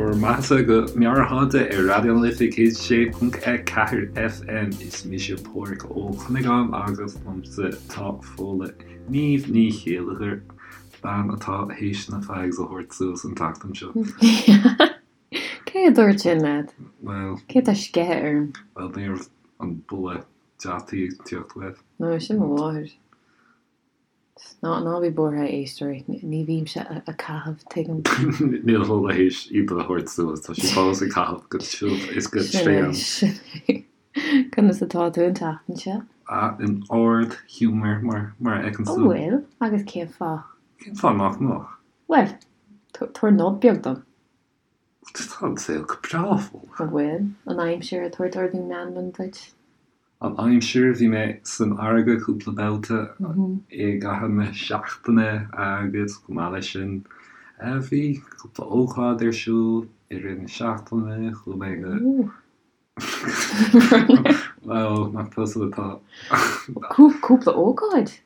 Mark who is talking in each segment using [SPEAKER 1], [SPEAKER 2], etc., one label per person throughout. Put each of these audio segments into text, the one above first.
[SPEAKER 1] bhur mbeathasa go Meabhairshláinte ar Raidió na Life 106.4 FM. Is mise Pádhraic Ó Cuinneagáin agus liomsa tá Fódhla Niamh Ní Chéilleachair, bean atá théis na fags a thabhairt suas an tseachtain seo.
[SPEAKER 2] Cé a dúirt sin leat?
[SPEAKER 1] Bhuel.
[SPEAKER 2] Cé atá ag sceitheadh orm?
[SPEAKER 1] Bhuel, ní raibh an boladh deataí ag tíocht uait.
[SPEAKER 2] No, sin mo mháthair. Ná, ná bí buartha, a éisteoirí, ní bhímse ag caitheamh, tuigim.
[SPEAKER 1] Níl Fódhla théis iad a thabhairt suas, tá sí fós ag caitheamh go tiubh is go
[SPEAKER 2] tréan. Sin é, sin é. Conas atá tú an tseachtain seo?
[SPEAKER 1] Ah, in ard-ghiúmar, mar, mar a fheiceann
[SPEAKER 2] tú. An bhfuil? Agus cén fáth?
[SPEAKER 1] Cén fáth nach mbeadh?
[SPEAKER 2] Bhuel, tabhair nod beag dom.
[SPEAKER 1] Tá an saol go breá, Fódhla.
[SPEAKER 2] An bhfuil? An aimsir ag tabhairt ardú meanman duit?
[SPEAKER 1] An aimsir, bhí mé san fharraige cúpla babhta i gcaitheamh na seachtaine agus chomh maith leis sin bhí cúpla ócáid ar siúl i rith na seachtaine, chuaigh mé go Bhuel, nach tusa atá.
[SPEAKER 2] Cúpla ócáid?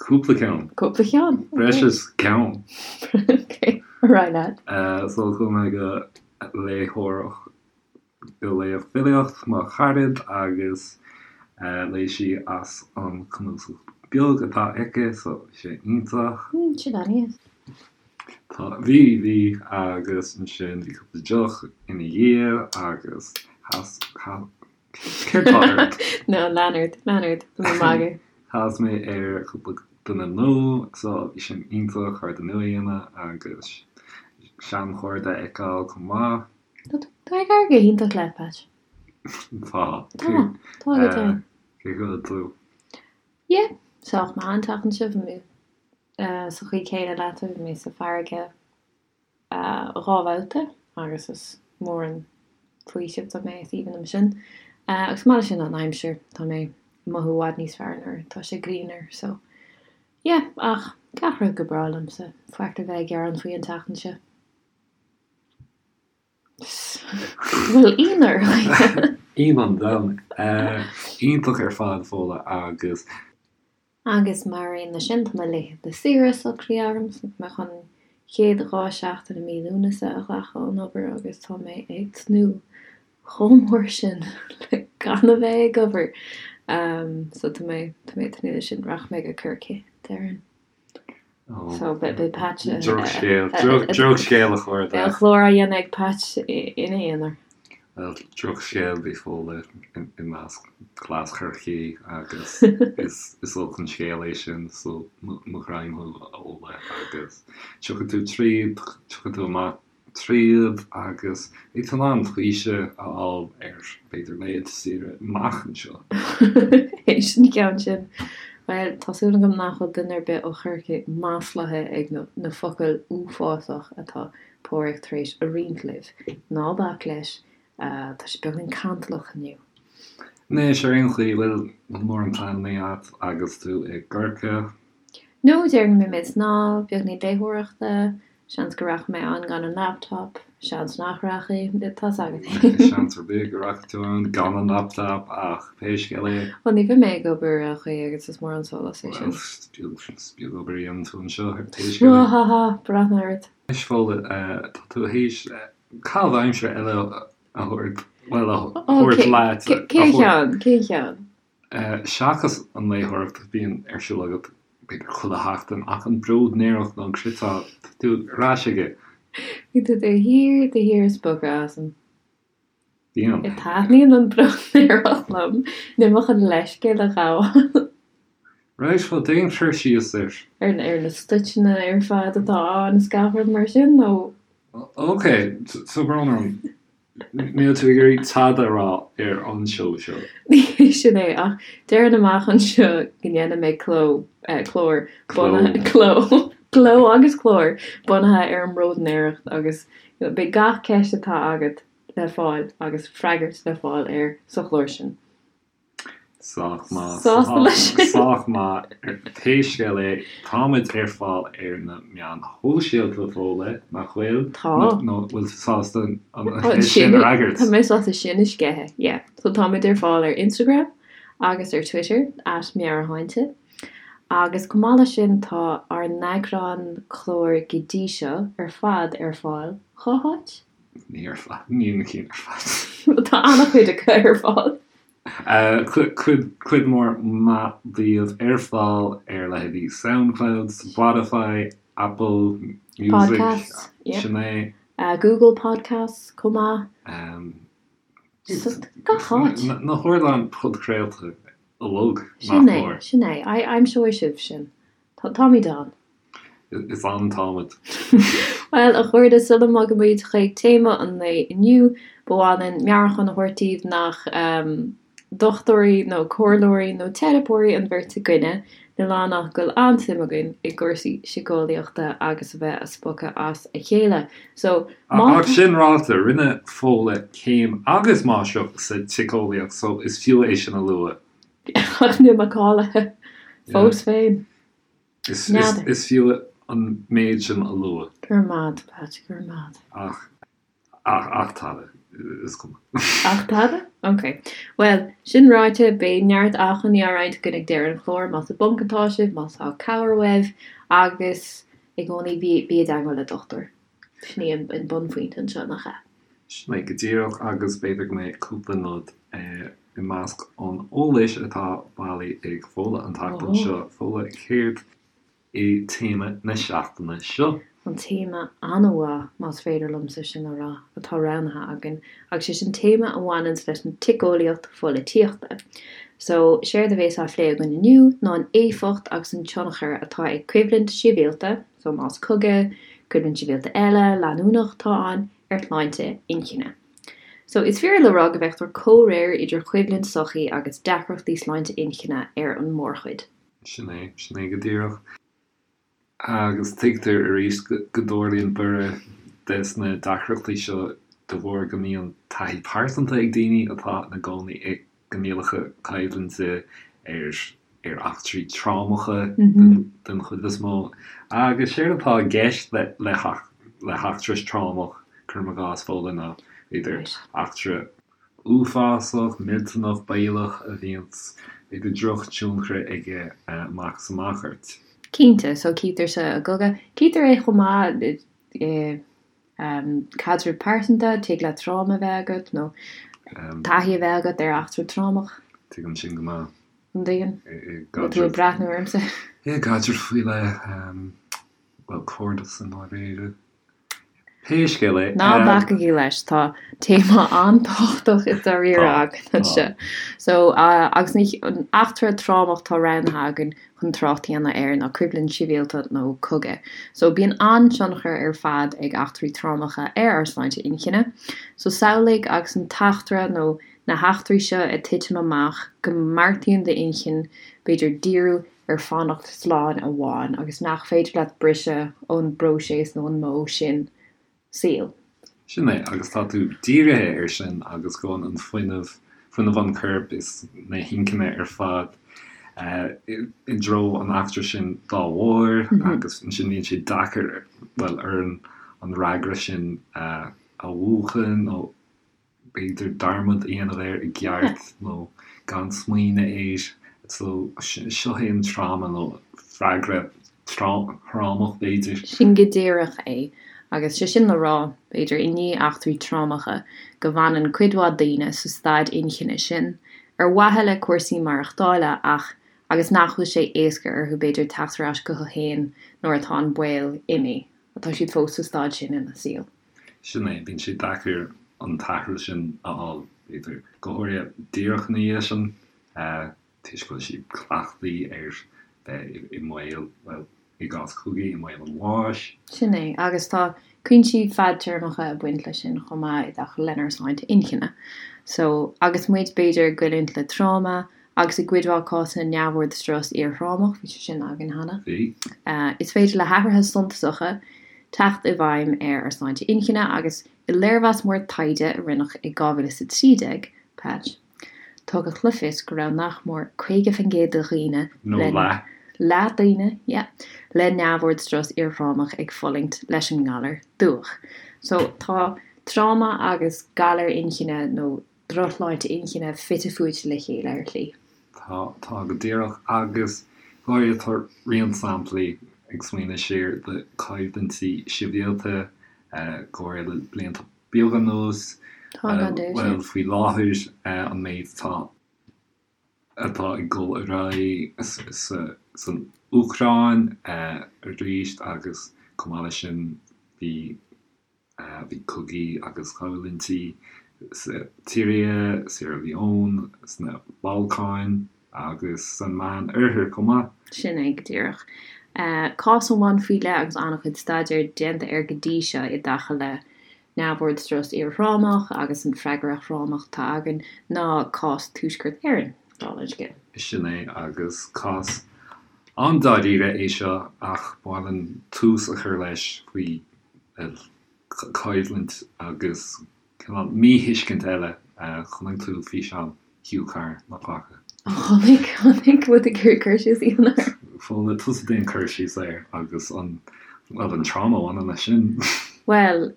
[SPEAKER 1] Cúpla ceann.
[SPEAKER 2] Cúpla ceann,
[SPEAKER 1] ok. Breis is ceann.
[SPEAKER 2] Ok, ar aghaidh leat.
[SPEAKER 1] So chuaigh mé go léitheoireacht, go léamh filíocht mo charad agus léigh sí as an cnuasach beag atá aici, so bhí sé iontach.
[SPEAKER 2] Sin an-deas.
[SPEAKER 1] Tá, bhí, bhí agus ansin bhí cúpla deoch ina dhiaidh agus chas, chas, Céard tá
[SPEAKER 2] ort? No, lean ort, lean ort, tá mé ag magadh.
[SPEAKER 1] Chas mé ar chúpla duine nua, so bhí sin iontach, cairde nua a dhéanamh agus seanchairde a fheiceáil chomh maith.
[SPEAKER 2] Tá ag éirí go hiontach leat, Patch.
[SPEAKER 1] Tá.
[SPEAKER 2] Tá, tá go deimhin.
[SPEAKER 1] Cén chaoi a bhfuil tú?
[SPEAKER 2] Yeah, sách maith an tseachtain seo, bhí mé sa chaoi céanna leatsa, bhí mé sa bhfarraige. 2 bhabhta agus is mór an faoiseamh dom é, is aoibhinn liom sin. Agus chomh maith leis sin an aimsir, tá mé ag mothú i bhfad níos fearr nuair atá sé grianmhar so yeah ach gach rud go breá liomsa, faic le bheith ag gearán faoi an tseachtain seo. Bhfuil ionadh
[SPEAKER 1] ort? Ionadh an domhain. Iontach ar fad, Fódhla, agus.
[SPEAKER 2] Agus mar aon leis sin, tá mo laethanta saoire socraithe agam, so tá mé chun an chéad 2 seachtain i mí Lúnasa a ghlacadh ón obair agus tá mé ag tnúth chomh mór sin le gan a bheith ag obair. So tá mé, tá mé ag tnúth leis sin. Rachaidh mé go Corcaigh, déarfainn. So beidh Patch.
[SPEAKER 1] Drochscéal, drochscéal a chairde.
[SPEAKER 2] Beidh an clár á dhéanamh ag Patch ina aonar.
[SPEAKER 1] Bhuel, drochscéal bhí Fódhla i measc cleas Chorcaí agus is olc an scéal é sin so mo ghreim thú a Fhódhla agus tiocfaidh tú tríd, tiocfaidh tú amach tríd agus beidh tú in ann faoiseamh a fháil ar b'fhéidir laethanta saoire amach anseo.
[SPEAKER 2] Théis an cheann sin, bhuel, tá súil agam nach bhfuil duine ar bith ó Chorcaigh maslaithe ag na focail uafásach atá Páraic tar éis a roinnt libh. Ná bac leis, tá sé beagáinín cantalach inniu.
[SPEAKER 1] Anois, ar aon chaoi, bhfuil mórán pleananna agat agus tú i gCorcaigh?
[SPEAKER 2] No, déarfainn go mbeidh mé ag snámh, beagáinín léitheoireachta, seans go rachaidh mé ann gan an laptop, seans nach rachaidh, tá's agat.
[SPEAKER 1] Seans ar bith go rachaidh tú ann gan an laptop ach pé scéal é.
[SPEAKER 2] Bhuel, ní bheidh mé ag obair ar aon chaoi agus is mór an sólás é
[SPEAKER 1] sin. Bhuel, is beag obair a dhéanann tú anseo ar pé scéal é.
[SPEAKER 2] Ha ha ha, breathnaigh ort.
[SPEAKER 1] Anois Fódhla, tá tú théis caitheamh aimsire eile a thabhairt, bhuel, a thabhairt leat.
[SPEAKER 2] Cén cheann? Cén cheann?
[SPEAKER 1] Seachas an léitheoireacht a bhíonn ar siúl agat b'fhéidir chuile sheachtain, ach an bróidnéireacht nó an cniotáil, tá tú ar ais aige.
[SPEAKER 2] Bíonn tú de shíor, de shíor ag spochadh asam.
[SPEAKER 1] Bíonn.
[SPEAKER 2] Taitníonn an bróidnéireacht liom. Níl mé chun leithscéal a ghabháil.
[SPEAKER 1] Right, bhuel déan cur síos air.
[SPEAKER 2] Ar na stoiteanna ar fad atá ann is gach rud mar sin, nó?
[SPEAKER 1] Ok, tá brón orm. Níl tú ag iarraidh tada a rá ar an seó seo.
[SPEAKER 2] Ní hé sin é, ach déarfainn amach anseo go ndéanfaidh mé cló, clár, bunaithe, cló, cló agus clár bunaithe ar an mbróidnéireacht agus beidh gach ceist atá agat le fáil agus freagairt le fáil air sa chlár sin.
[SPEAKER 1] Sách maith.
[SPEAKER 2] Sásta leis sin?
[SPEAKER 1] Sách maith. Pé scéal é, táimid ar fáil ar na meáin shóisialta, Fódhla, nach bhfuil?
[SPEAKER 2] Tá.
[SPEAKER 1] Nó bhfuil tú sásta an cheist sin a fhreagairt?
[SPEAKER 2] Tá mé sásta sin a sceitheadh, yeah. So táimid ar fáil ar Instagram agus ar Twitter, at Meabhairshláinte. Agus chomh maith leis sin, tá ár n-eagrán cláir go dtí seo ar fad ar fáil, cá háit?
[SPEAKER 1] Ní ar fad, ní na cinn ar fad.
[SPEAKER 2] Tá an-chuid acu ar fáil.
[SPEAKER 1] Cuid mhór mhaith díobh ar fáil ar leithéidí Soundcloud, Spotify, Apple Music,
[SPEAKER 2] Podcasts, yeah.
[SPEAKER 1] sin é.
[SPEAKER 2] Google Podcasts chomh maith. Gach áit.
[SPEAKER 1] Na hardáin podchraolta uilig, nach
[SPEAKER 2] Sin é,
[SPEAKER 1] mór.
[SPEAKER 2] sin é. Aimseoidh sibh sinn. Táimid ann.
[SPEAKER 1] Is ann táimid.
[SPEAKER 2] Bhuel, a chairde, sula mbogaimid chuig téama an lae inniu, ba mhaith linn meabhrúchán a thabhairt daoibh nach dochtúirí nó comhairleoirí nó teiripeoirí an bheirt againne, níl ann ach go bhfuil an-suim againn i gcúrsaí síceolaíochta agus a bheith a' spochadh as a chéile. So, má
[SPEAKER 1] Ach sin ráite, rinne Fódhla céim agus máistreacht sa tsíceolaíocht, so is fiú é sin a lua.
[SPEAKER 2] Ach níl mé cáilithe fós féin.
[SPEAKER 1] N'fheadar. Is fiú an méid sin a lua.
[SPEAKER 2] Go raibh maith agat, Pat, go raibh maith agat.
[SPEAKER 1] Ach, ach, ach tada, is cuma.
[SPEAKER 2] Ach tada? Ok. Bhuel, sin ráite, beidh neart acmhainní á roinnt againn ag deireadh an chláir, más i bponc atá sibh, má tá cabhair uaibh, agus i gcónaí bí, bí i dteagmháil le dochtúir. Sin í an bunphointe anseo, nach ea?
[SPEAKER 1] Sin é go díreach, agus b'fhéidir go mbeidh cúpla nod i measc an eolais atá bailithe ag Fódhla an tseachtain seo. Fódhla, céard é téama na seachtaine seo?
[SPEAKER 2] An téama an-mhaith, más féidir liomsa sin a rá, atá roghnaithe againn, agus sé sin téama a bhaineanns leis an tsiceolaíocht pholaitíochta. So, séard a bhéas á phlé againn inniu ná an éifeacht agus an tionchar atá ag coimhlint shibhialta, So más cogadh, coimhlint shibhialta eile, leanúnach atá ann, ar shláinte inchinne. So is fíor le rá go bhfeictear comhréir idir choimhlint sochaí agus deacrachtaí sláinte inchinne ar an mórchuid.
[SPEAKER 1] Sin é, sin é go díreach. Agus tuigtear arís go dtarlaíonn borradh des na deacrachtaí seo de bharr go mbíonn taithí pearsanta ag daoine atá ina gcónaí i gcoinníollacha coimhlinte ar ar eachtraí trámacha den chuid is mó. Agus séard atá i gceist le le heachtra trámach, cuirim i gcás, Fódhla, ná b'fhéidir eachtra uafásach, millteanach, baolach a bhíonns b'fhéidir drochthionchar aige amach is amach ort.
[SPEAKER 2] Cinnte, so cítear sa gcogadh, cítear é chomh maith i Caidreamh pearsanta, tig leat tráma a bheith agat nó taithí a bheith agat ar eachtra trámach.
[SPEAKER 1] Tuigim sin go maith.
[SPEAKER 2] An dtuigeann? Bhfuil tú ag breathnú ormsa?
[SPEAKER 1] I gcaidreamh faoi leith, bhuel, cairdeas i ndáiríre. Pé scéal é.
[SPEAKER 2] Ná bacaigí leis, tá téama an-tábhachtach i dáiríre againn anseo. So, agus an eachtra trámach atá roghnaithe againn chun trácht a dhéanamh air ná coimhlint shibhialta nó cogadh. So, bíonn an-tionchar ar fad ag eachtraí trámacha ar ár sláinte inchinne. So, samhlaigh agus an t-eachtra nó na heachtraí seo ag titim amach go mbeartaíonn d'inchinn b'fhéidir díriú ar fanacht slán amháin agus nach féidir leat briseadh ón bpróiseas nó an modh sin saoil.
[SPEAKER 1] Sin é, agus tá tú dírithe air sin agus gabhann an fuinneamh, fuinneamh an choirp is na hinchinne ar fad i dtreo an eachtra sin dá bharr agus ansin bíonn sé deacair, bhuel, orainn an fhreagra sin a mhúchadh nó b'fhéidir dearmad a dhéanamh air i gceart nó gan smaoineamh air. So, seo é an tráma nó freagra trámach b'fhéidir.
[SPEAKER 2] Sin go díreach é. Agus sé sin le rá, b'fhéidir, i ndiaidh eachtraí trámacha, go bhfanann cuid mhaith daoine sa staid inchinne sin, ar mhaithe le cúrsaí maireachtála ach agus nach bhfuil sé éasca orthu b'fhéidir teacht ar ais chucu féin nuair atá an baol imithe. Tá siad fós sa staid sin ina saol.
[SPEAKER 1] Sin é, bíonn sé deacair an t-athrú sin a fháil, b'fhéidir, go háirithe díreach ina dhiaidh sin, toisc go bhfuil siad cleachtaithe ar bheith i mbaol, bhuel, i gcás cogaidh, i mbaol an bháis.
[SPEAKER 2] Sin é, agus tá cúinsí fadtéarmacha ag baint leis sin chomh maith i dtaca lenár sláinte inchinne. So, agus muid, b'fhéidir, ag goilliúint le tráma, agus i gcuid mhaith cásanna neamhord strus iarthrámach, bhí sé sin againn cheana.
[SPEAKER 1] Bhí.
[SPEAKER 2] Is féidir le hathruithe suntasacha teacht i bhfeidhm ar ár sláinte inchinne agus i léirmheas mór taighde a rinneadh i 2013, Patch, tugadh le fios go raibh nach mór 50% de dhaoine
[SPEAKER 1] Nó
[SPEAKER 2] le
[SPEAKER 1] leath.
[SPEAKER 2] leath daoine, yeah, le neamhord strus iarthrámach ag fulaingt leis an ngalar dubhach. So tá tráma agus galar inchinne nó drochshláinte inchinne fite fuaite le chéile ar shlí.
[SPEAKER 1] Tá, tá go díreach. Agus go háirithe tá roinnt samplaí ag smaoineamh siar de choimhlintí sibhialta, go háirithe le blianta. beag anuas, bhuel, faoi láthair, an méid atá atá ag dul ar aghaidh san Úcráin arís agus chomh maith leis sin bhí bhí cogaí agus coimhlintí sa tSiria, Sierra Leone, sna Balcáin agus san Meán Oirthear chomh maith.
[SPEAKER 2] Sin é go díreach. Cás amháin faoi leith agus an-chuid staidéir déanta air go dtí seo i dtaca le neamhord strus iarthrámach agus an freagra thrámach atá againn ná cás Tuaisceart Éireann, dála an
[SPEAKER 1] scéil. Sin é, agus cás an-dáiríre é seo ach ba mhaith linn tús a chur leis faoi choimhlint agus cineál míthuiscint eile. Chonaic tú físeán Hugh Carr, nach bhfaca?
[SPEAKER 2] Chonaic, chonaic, bhfuil tú ag iarraidh cur síos a dhéanamh air?
[SPEAKER 1] Bhuel, tusa déan cur síos air agus an, bhuel, an tráma a bhaineann leis sin.
[SPEAKER 2] Bhuel,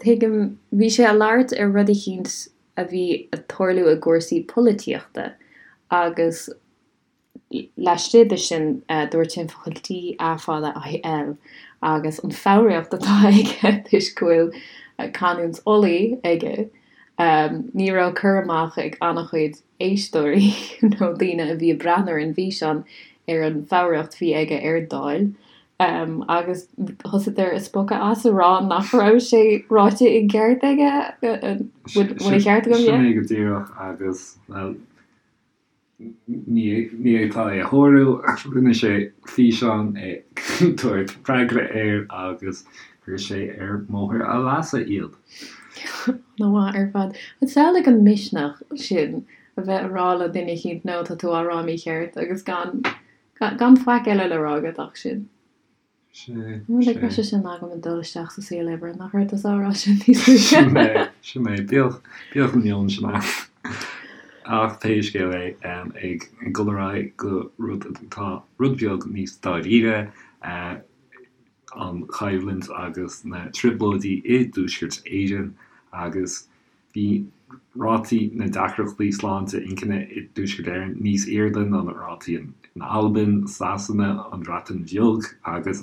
[SPEAKER 2] tuigim, bhí sé ag labhairt ar rud eicínt a bhí ag tarlú i gcúrsaí polaitíochta agus Laistigh de sin, dúirt sé an focal D A fada I L agus an foghraíocht atá aige toisc go bhfuil canúint Ulaidh aige. Ní raibh cur amach ag an-chuid éisteoirí nó daoine a bhí ag breathnú ar an bhfíseán ar an bhfoghraíocht a bhí aige ar Dáil agus thosaíodar ag spochadh as ag rá nach raibh sé ráite i gceart aige. Bhfuil an ceart agam?
[SPEAKER 1] Sin é go díreach agus, bhuel, Ní fhéadfá é a shárú ach rinne sé físeán ag tabhairt freagra air agus chuir sé ar bhóthar a leasa iad.
[SPEAKER 2] An-mhaith ar fad. Samhlaigh an misneach sin a bheith ag rá le duine eicínt no tá tú á rá mícheart agus gan gan faic eile le rá agat ach sin.
[SPEAKER 1] Sé,
[SPEAKER 2] Like
[SPEAKER 1] sé.
[SPEAKER 2] sé sin agam ag dul isteach sa saol oibre, nach raibh tusa á rá sin níos luaithe?
[SPEAKER 1] Sin é, sin é. Bíodh, bíodh an meon sin ann. Ach pé scéal é, ag dul ar aghaidh go rud atá rud beag níos dáiríre, an choimhlint agus na trioblóidí i dTuaisceart Éireann agus Bhí rátaí na deacrachtaí sláinte inchinne i dTuaisceart Éireann níos airde ná na rátaí in Albain, Sasana, an Bhreatain Bheag agus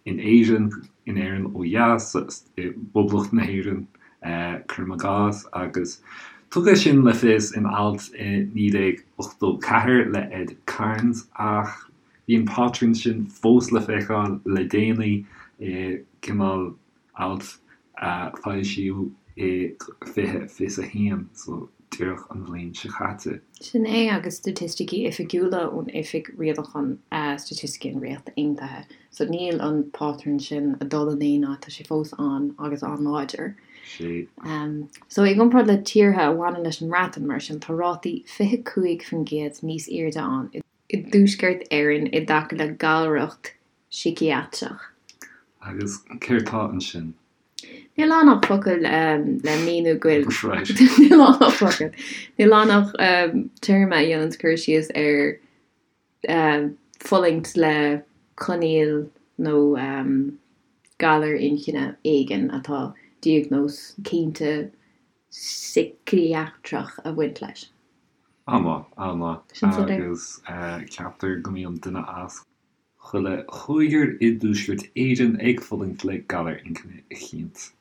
[SPEAKER 1] in Éirinn, in Éirinn ó dheas, i bPoblacht na hÉireann, cuirim i gcás, agus tugadh sin le fios in alt i 1984 le Ed Cairns ach bhí an pátrún sin fós le feiceáil le déanaí i gcineál alt a foilsíodh i 2021, so díreach an bhliain seo caite.
[SPEAKER 2] Sin é agus staitisticí oifigiúla ón Oifig Rialacháin Staitisticí an Ríocht Aontaithe. So níl an pátrún sin ag dul in aon áit, tá sé fós ann agus an-láidir.
[SPEAKER 1] Sea.
[SPEAKER 2] So i gcomparáid le tíortha a bhaineann leis an mBreatain, mar sin, tá rátaí 25% níos airde ann i dTuaisceart Éireann i dtaca le galracht síciatrach.
[SPEAKER 1] Agus céard tá ansin?
[SPEAKER 2] Níl ann ach focal le míniú go bhfuil. Right. Níl ann ach focal. Níl ann ach téarma a dhéananns cur síos ar fulaingt le coinníoll nó galar inchinne éigin atá diagnóis cinnte síciatrach ag baint leis.
[SPEAKER 1] An-mhaith, an-mhaith.
[SPEAKER 2] Sin soiléir.
[SPEAKER 1] Agus ceaptar go mbíonn duine as chuile chúigear i dTuaisceart Éireann ag fulaingt le galar inchinne eicínt.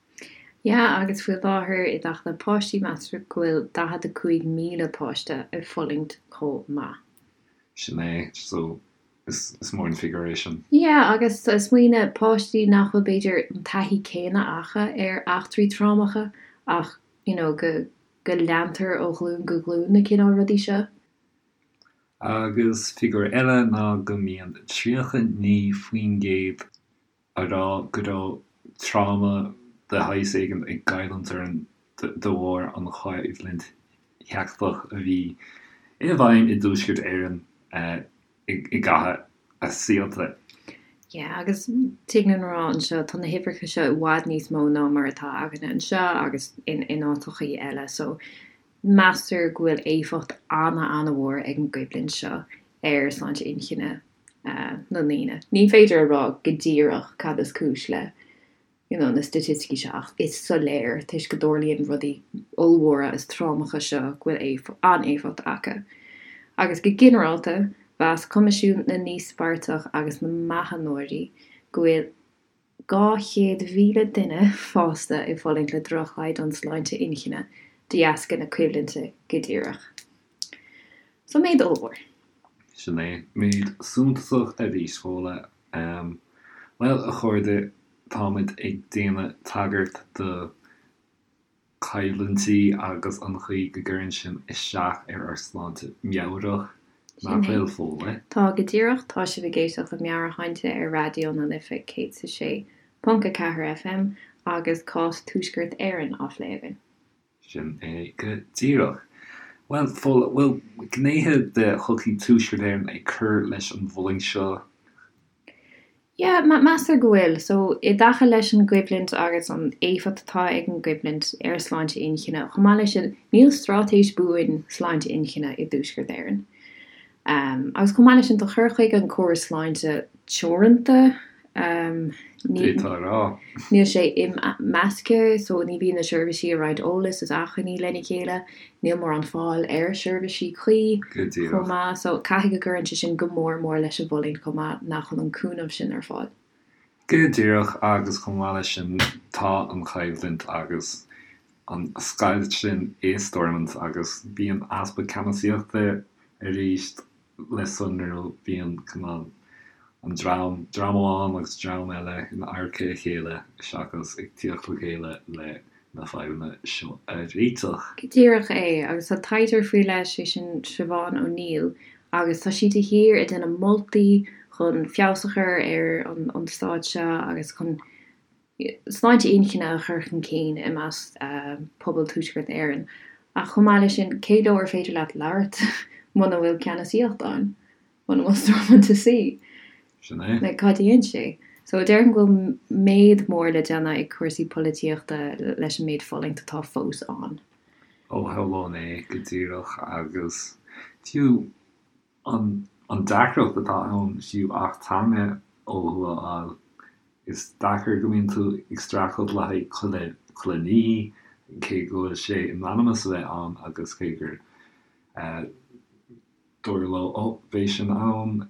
[SPEAKER 2] Yeah, agus faoi láthair i dtaca le páistí, meastar go bhfuil 45,000 páiste ag fulaingt chomh maith.
[SPEAKER 1] Sin é, so is mór an figiúr é sin.
[SPEAKER 2] Yeah, agus smaoinigh, páistí nach bhfuil b'fhéidir an taithí céanna acu ar eachtraí trámacha ach, you know, go go leantar ó ghlúin go glúin na cineál rudaí seo.
[SPEAKER 1] Agus figiúr eile ná go mbíonn 39% a rá go raibh tráma de shaghas éigin ag goilliúint orthu de bharr an choimhlint sheicteach a bhí i bhfeidhm i dTuaisceart Éireann i gcaitheamh a saolta.
[SPEAKER 2] Yeah, agus tig linn a rá anseo, tá na huimhreacha seo i bhfad níos mó ná mar atá againne anseo agus in áiteachaí eile, so Meastar go bhfuil éifeacht ana-ana-mhór ag an gcoimhlint seo ar sláinte inchinne na ndaoine. Ní féidir a rá go díreach cad is cúis le you know na staitisticí seo ach is soiléir toisc go dtarlaíonn rudaí ollmhóra is trámacha seo go bhfuil an-éifeacht acu. Agus go ginearálta, mheas Coimisiún na nÍospartach agus na mBeathnóirí go bhfuil. 200,000 duine fásta ag fulaingt le droch-chaighdeán sláinte inchinne de dheasca na coimhlinte go díreach. So méid ollmhór.
[SPEAKER 1] Sin é. Méid suntasach arís, Fódhla. Bhuel, a chairde, táimid ag déanamh tagairt do choimhlintí agus an chaoi go gcuireann sin isteach ar ár sláinte meabhrach, nach bhfuil, Fódhla?
[SPEAKER 2] Tá, go díreach. Tá sibh ag éisteacht le Meabhairshláinte ar Raidió na Life 106.4 FM agus cás Tuaisceart Éireann á phlé againn.
[SPEAKER 1] Sin é go díreach. Bhuel, Fódhla, bhfuil gnéithe de shochaí Tuaisceart Éireann ag cur leis an bhfulaingt seo?
[SPEAKER 2] Yeah, meastar go bhfuil. So, i dtaca leis an gcoimhlint agus an éifeacht atá ag an gcoimhlint ar sláinte inchinne, chomh maith leis sin, níl straitéis buan sláinte inchinne i dTuaisceart Éireann. Agus chomh maith leis sin, tá cur chuige an córas sláinte teoranta.
[SPEAKER 1] D'fhéadfá a rá.
[SPEAKER 2] Níl sé imeasctha, so ní bhíonn na seirbhísí ag roinnt eolas is acmhainní lena chéile, níl mórán fáil ar sheirbhísí cuí chomh maith, so caithfidh go gcuireann sé sin go mór mór leis an bhfulaingt chomh maith nach bhfuil an cúnamh sin ar fáil.
[SPEAKER 1] Go díreach, agus chomh maith leis sin tá an choimhlint agus an scoilt sin i Stormont agus bíonn easpa ceannasaíochta arís le sonrú, bíonn cineál an dream, dream amháin agus dream eile in adharca a chéile seachas ag tíocht le chéile le na fadhbanna seo a réiteach.
[SPEAKER 2] Go díreach é, agus tá taighdeoir faoi leith, sé sin Siobhán O'Neill, agus tá sí de shíor ag déanamh moltaí chun feabhas a chur ar an staid seo agus chun sláinte inchinne a chur chun cinn i measc pobal Tuaisceart Éireann. Ach chomh maith leis sin, cé leo ar féidir leat labhairt muna bhfuil ceannasaíocht ann? Muna bhfuil Stormont ina suí?
[SPEAKER 1] Sin é.
[SPEAKER 2] Like, cad a dhéanann sé? So, déarfainn go bhfuil méid mór le déanamh ag cúrsaí polaitíochta leis an méid fulaingt atá fós ann.
[SPEAKER 1] Ó, shamhlóinn é go díreach agus fiú An deacracht atá ann fiú acht teanga ó thuaidh a fháil, is deacair go mbíonn tú ag streachailt le haghaidh chuile chuile ní, cé go bhfuil sé in ainm is a bheith ann agus cé gur dúradh leo ó beidh sin ann,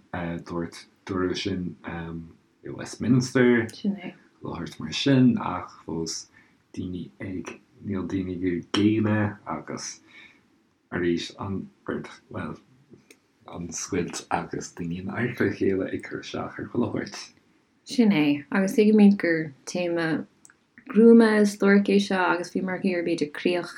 [SPEAKER 1] dúirt dúradh sin i Westminster,
[SPEAKER 2] Sin é.
[SPEAKER 1] le mar sin ach fós daoine ag, níl daoine ag géilleadh agus. Arís, an rud, bhuel, an scoilt agus daoine in adharca a chéile ag cur isteach ar chuile shórt.
[SPEAKER 2] Sin é, agus tuigimid gur téama gruama is duairc é seo agus bhíomar ag iarraidh b'fhéidir críoch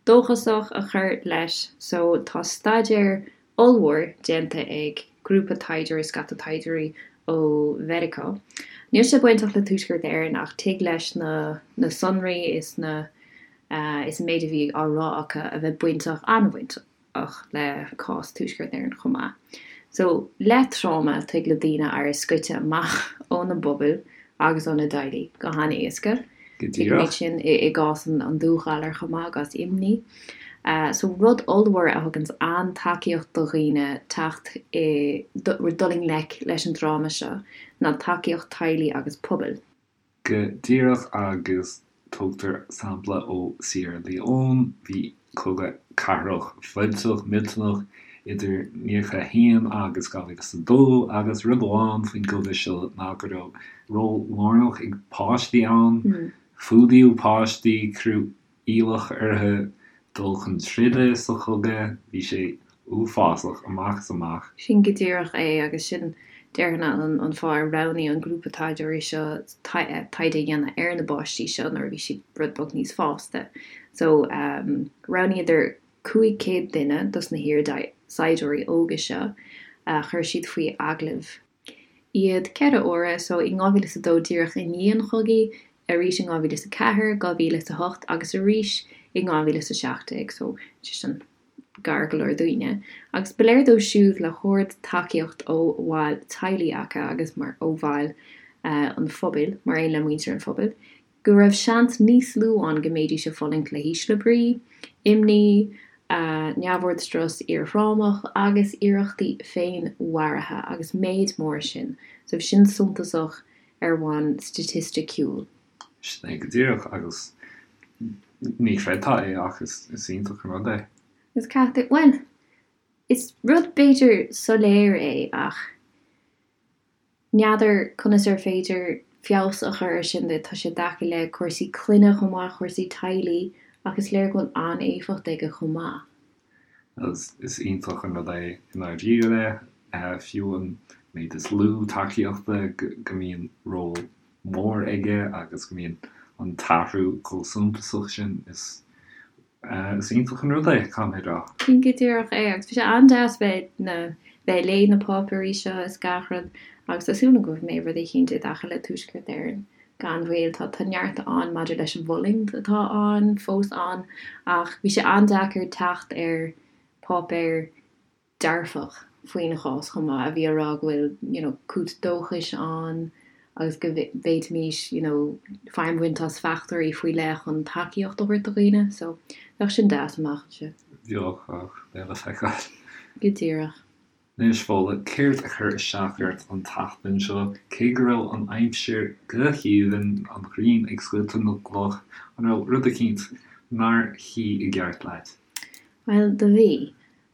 [SPEAKER 2] dóchasach a chur leis so tá staidéar ollmhór déanta ag grúpa taighdeoirí, scata taighdeoirí ó Mheiriceá. Níl sé bainteach le Tuaisceart Éireann ach tig leis na na sonraí is na is an méid a bhí á rá acu a bheith bainteach, an-bhainteach le cás Tuaisceart Éireann chomh maith. So, le tráma, tig le daoine éirí scoite amach óna bpobail agus óna dteaghlaigh go han-éasca.
[SPEAKER 1] Go
[SPEAKER 2] Tuigimid
[SPEAKER 1] díreach.
[SPEAKER 2] sin i gcás an dúghalair chomh maith, i gcás imní. So, rud ollmhór a thuganns an-tacaíocht do dhaoine teacht i, dul i ngleic leis an dtráma seo ná tacaíocht teaghlaigh agus pobail.
[SPEAKER 1] Go díreach agus tugtar sampla ó Sierra Leone, bhí cogadh cathrach fuilteach millteanach idir 91 agus 2002 agus rud amháin faoin gcogadh seo ná go raibh ról lárnach ag páistí ann, fuadaíodh páistí, cuireadh iallach orthu dul chun troda sa chogadh. Bhí sé uafásach amach is amach.
[SPEAKER 2] Sin go díreach é agus sin, déarfainn, an fáth ar roghnaigh an grúpa taighdeoirí seo taighde a dhéanamh ar na bpáistí seo nuair a bhí siad rud beag níos fásta. So, roghnaíodar 500 duine dos na hiar-saighdiúirí óga seo, chuir siad faoi agallamh. iad 4 huaire, so in 2002 díreach i ndiaidh an chogaidh, arís in 2004, 2008 agus arís in 2017, so sé sin gar go leor dúinne. Agus ba léir dóibh siúd le hard-tacaíocht ó bhaill teaghlaigh acu agus mar ó bhaill an phobail, mar aon le muintir an phobail, go raibh seans níos lú ann go mbeidís ag fulaingt le hísle brí, imní, neamhord strus iarthrámach agus iarrachtaí féinmharaithe agus méid mór sin. So bhí sin suntasach ar bhonn staitisticiúil.
[SPEAKER 1] Sin é go díreach agus ní chreidfeá é ach is iontach an rud é.
[SPEAKER 2] Is caithfidh, bhuel, is rud b'fhéidir soiléir é ach. N'fheadar conas ar féidir feabhas a chur ar sin, tá sé i dtaca le cúrsaí clainne chomh maith, cúrsaí teaghlaigh ach is léir go bhfuil an-éifeacht aige chomh maith.
[SPEAKER 1] Is iontach an rud é i ndáiríre, fiú an méid is lú tacaíochta go mbíonn ról mór aige agus go mbíonn an t-athrú chomh suntasach sin. Is iontach an rud é, caithfidh mé a rá.
[SPEAKER 2] Sin go díreach é agus bhí sé an-deas bheith na bheith ag léamh na páipéirí seo is gach rud agus tá súil agam go mbeidh rud eicínt i dtaca le Tuaisceart Éireann gan mhoill. Tá tá neart ann maidir leis an bhfulaingt atá ann, fós ann, ach bhí sé an-deacair teacht ar páipéar dearfach faoin chás chomh maith, a bhí á rá go bhfuil you know cúis dóchais ann agus go bhféadfaimis you know feidhm a bhaint as fachtóirí faoi leith chun tacaíocht a thabhairt do dhaoine. So bheadh sin deas amach anseo.
[SPEAKER 1] Bheadh, ach beidh le feiceáil.
[SPEAKER 2] Go díreach.
[SPEAKER 1] Anois, Fódhla, céard a chuir isteach ort an tseachtain seo? Cé go raibh an aimsir go haoibhinn, an ghrian ag scoilteadh na gcloch, an raibh rud eicínt nár shuigh i gceart leat?
[SPEAKER 2] Bhuel, do bhí.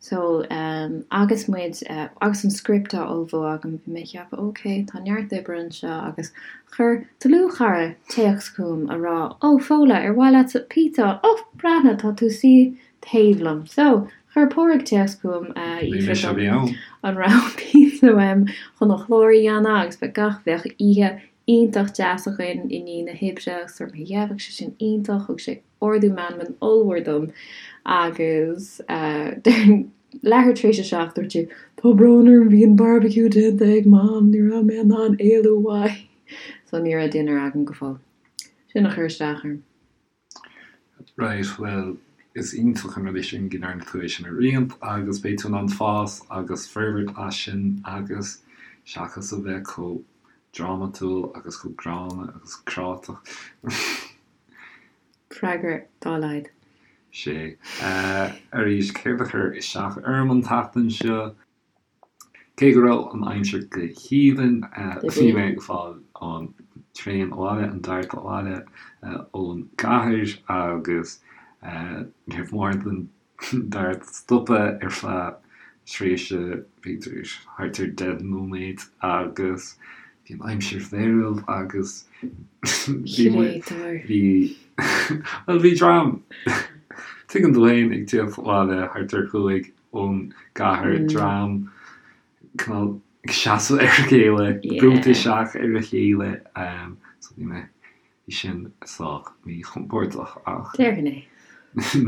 [SPEAKER 2] So, ehm, agus muid, eh, agus an script á ullmhú agam, bhí mé ag ceapadh, ok, tá neart oibre anseo agus chuir dlúthchara téacs chugam a rá, oh, Fódhla, ar mhaith leatsa pizza? Oh, breathnaigh, tá tú suí taobh liom. So, chuir Pádraig téacs chugam, eh,
[SPEAKER 1] Ní mise a bhí ann.
[SPEAKER 2] an raibh pizza uaim chun an clár a dhéanamh agus bheadh gach, bheadh oíche iontach deas againn i ndiaidh na hoibre agus dúirt mé, yeah, bheadh sé sin iontach, thug sé ardú meanman ollmhór dom agus leathuair tar éis a 7 dúirt sé Tá brón orm, bhí an barbecue déanta ag Mam, ní raibh mé in ann éalú uaidh. So ní raibh dinnéar agam go fóill. Sin a chuir isteach orm.
[SPEAKER 1] Right, bhuel, is iontach an rud é sin go ndearna tú é sin a roinnt agus beidh tú in ann fás agus forbairt as sin agus seachas a bheith chomh drámatúil agus chomh gránna agus cráiteach.
[SPEAKER 2] Freagra dá laghad.
[SPEAKER 1] Sea. Arís, céard a chuir isteach orm an tseachtain seo? Cé go raibh an aimsir go haoibhinn, bhí mé ag fáil an traein abhaile, an dart abhaile ón gcathair agus níor mhór don dart stopadh ar feadh tréimhse b'fhéidir thart ar 10 nóiméad agus bhí an aimsir mheirbh agus bhí muid, bhí, bhuel bhí dream, tuigeann tú féin, ag tíocht abhaile thart ar chúig ón gcathair, dream cineál ag seasamh ar a chéile, brúite isteach ar a chéile so bhí mé Bhí sin sách míchompordach ach
[SPEAKER 2] Déarfainn é.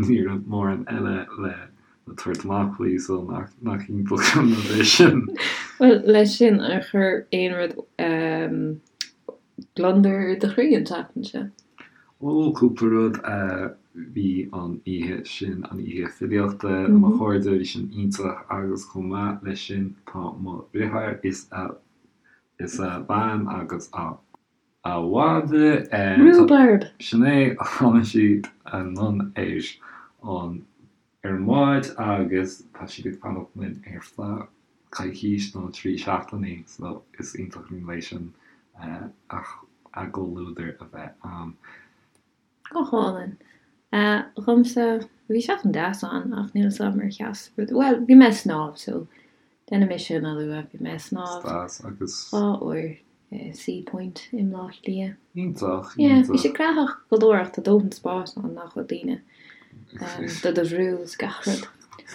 [SPEAKER 1] ní raibh mórán eile le tabhairt amach faoi so nach iontach an rud é sin.
[SPEAKER 2] Bhuel, leis sin, ar chuir aon rud gliondar ar do chroí an tseachtain seo?
[SPEAKER 1] Ó, cúpla rud. Bhí an oíche sin, an oíche filíochta le mo chairde, bhí sin iontach agus chomh maith leis sin tá mo dheartháir is a is a bhean agus a A mhadra.
[SPEAKER 2] Rúbarb!
[SPEAKER 1] Sin é, tháinig siad anonn ar an ar an mbád agus tá siad ag fanacht linn ar feadh coicís nó 3 seachtainí so is iontach an rud é sin a gcomhluadar a bheith ann.
[SPEAKER 2] Go hálainn. Dhomsa, bhí seachtain deas ann ach níl 'fhios a'm ar sheas rud, bhuel, bhí mé ag snámh so déanfaidh mé sin a lua, bhí mé ag snámh
[SPEAKER 1] Deas agus.
[SPEAKER 2] dhá uair i Seapoint i mBleá Cliath.
[SPEAKER 1] Iontach,
[SPEAKER 2] Yeah, bhí sé gnaitheach go leor ach tá dóthain spáis ann nach bhfuil daoine do do bhrú is gach rud.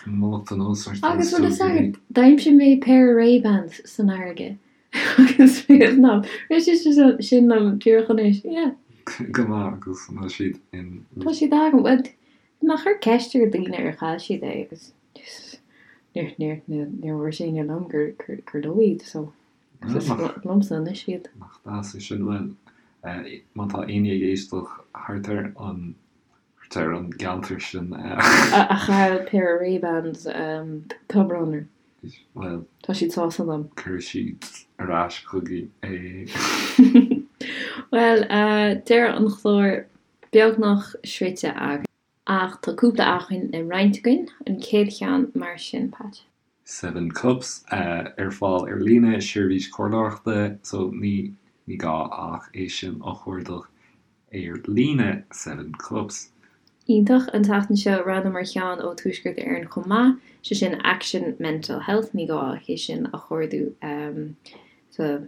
[SPEAKER 1] Mallacht anuas
[SPEAKER 2] ort Agus bhfuil fhios agat, d'aimsigh mé péire Ray-Bans san fharraige. Agus bhí a fhios a'm. Rith sé sin liom díreach anois, yeah.
[SPEAKER 1] Go maith, agus an bhfuil siad in.
[SPEAKER 2] Tá siad agam. Bhuel, bhí mé ag cur ceist ar daoine ar chaill siad é agus níor, níor, níor dhúirt éinne liom gur, gur, gur leo iad, so is liomsa anois iad.
[SPEAKER 1] Nach deas é sin. Bhuel, má tá éinne ag éisteacht thart ar an, thart ar an gceantar sin.
[SPEAKER 2] A chaill péire Ray-Bans, tá brón orm.
[SPEAKER 1] Bhuel.
[SPEAKER 2] Tá siad sásta liom.
[SPEAKER 1] Cuirfidh siad ar ais chugainn é.
[SPEAKER 2] Bhuel, deireadh an chláir beagnach sroichte againn. Ach tá cúpla acmhainn le roinnt againn. An chéad cheann mar sin, Pat.
[SPEAKER 1] Seven Cups, ar fáil ar líne, seirbhís comhairleoireachta, so ní ní gá ach é sin a chuardach ar líne, Seven Cups.
[SPEAKER 2] Iontach. An tseachtain seo roghnaíomar ceann ó Tuaisceart Éireann chomh maith, sé sin Action Mental Health, ní gá ach é sin a chuardú sa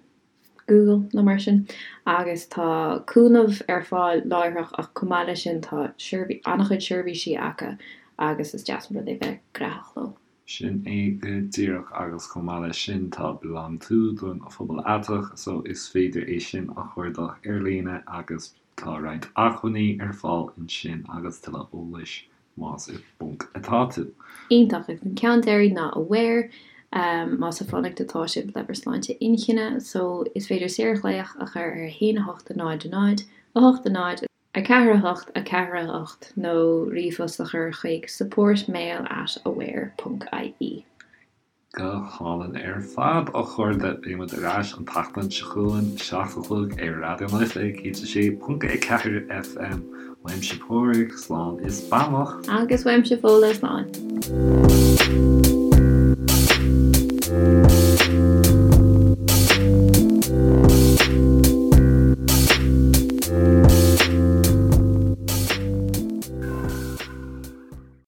[SPEAKER 2] Google nó mar sin agus tá cúnamh ar fáil láithreach ach chomh maith leis sin tá an-chuid seirbhísí acu agus is deas an rud é bheith gnaitheach leo.
[SPEAKER 1] Sin é go díreach agus chomh maith leis sin tá BeLonG To don phobal aiteach so is féidir é sin a chuardach ar líne agus tá roinnt acmhainní ar fáil ansin agus tuilleadh eolais más i bponc atá tú.
[SPEAKER 2] Iontach. Agus an ceann deiridh ná Aware, más ag fanacht atá sibh le bhur sláinte inchinne, so is féidir saorghlaoch a chur ar 1 8 0 0 8 0 4 8 4 8 nó ríomhphost a chur chuig supportmail at aware ponc ie.
[SPEAKER 1] Go hálainn ar fad, a chairde. Beidh muid ar ais an tseachtain seo chugainn, 7 a chlog ar Raidió na Life 106.4 FM. Uaimse Pádraig, slán is beannacht.
[SPEAKER 2] Agus uaimse Fódhla, slán.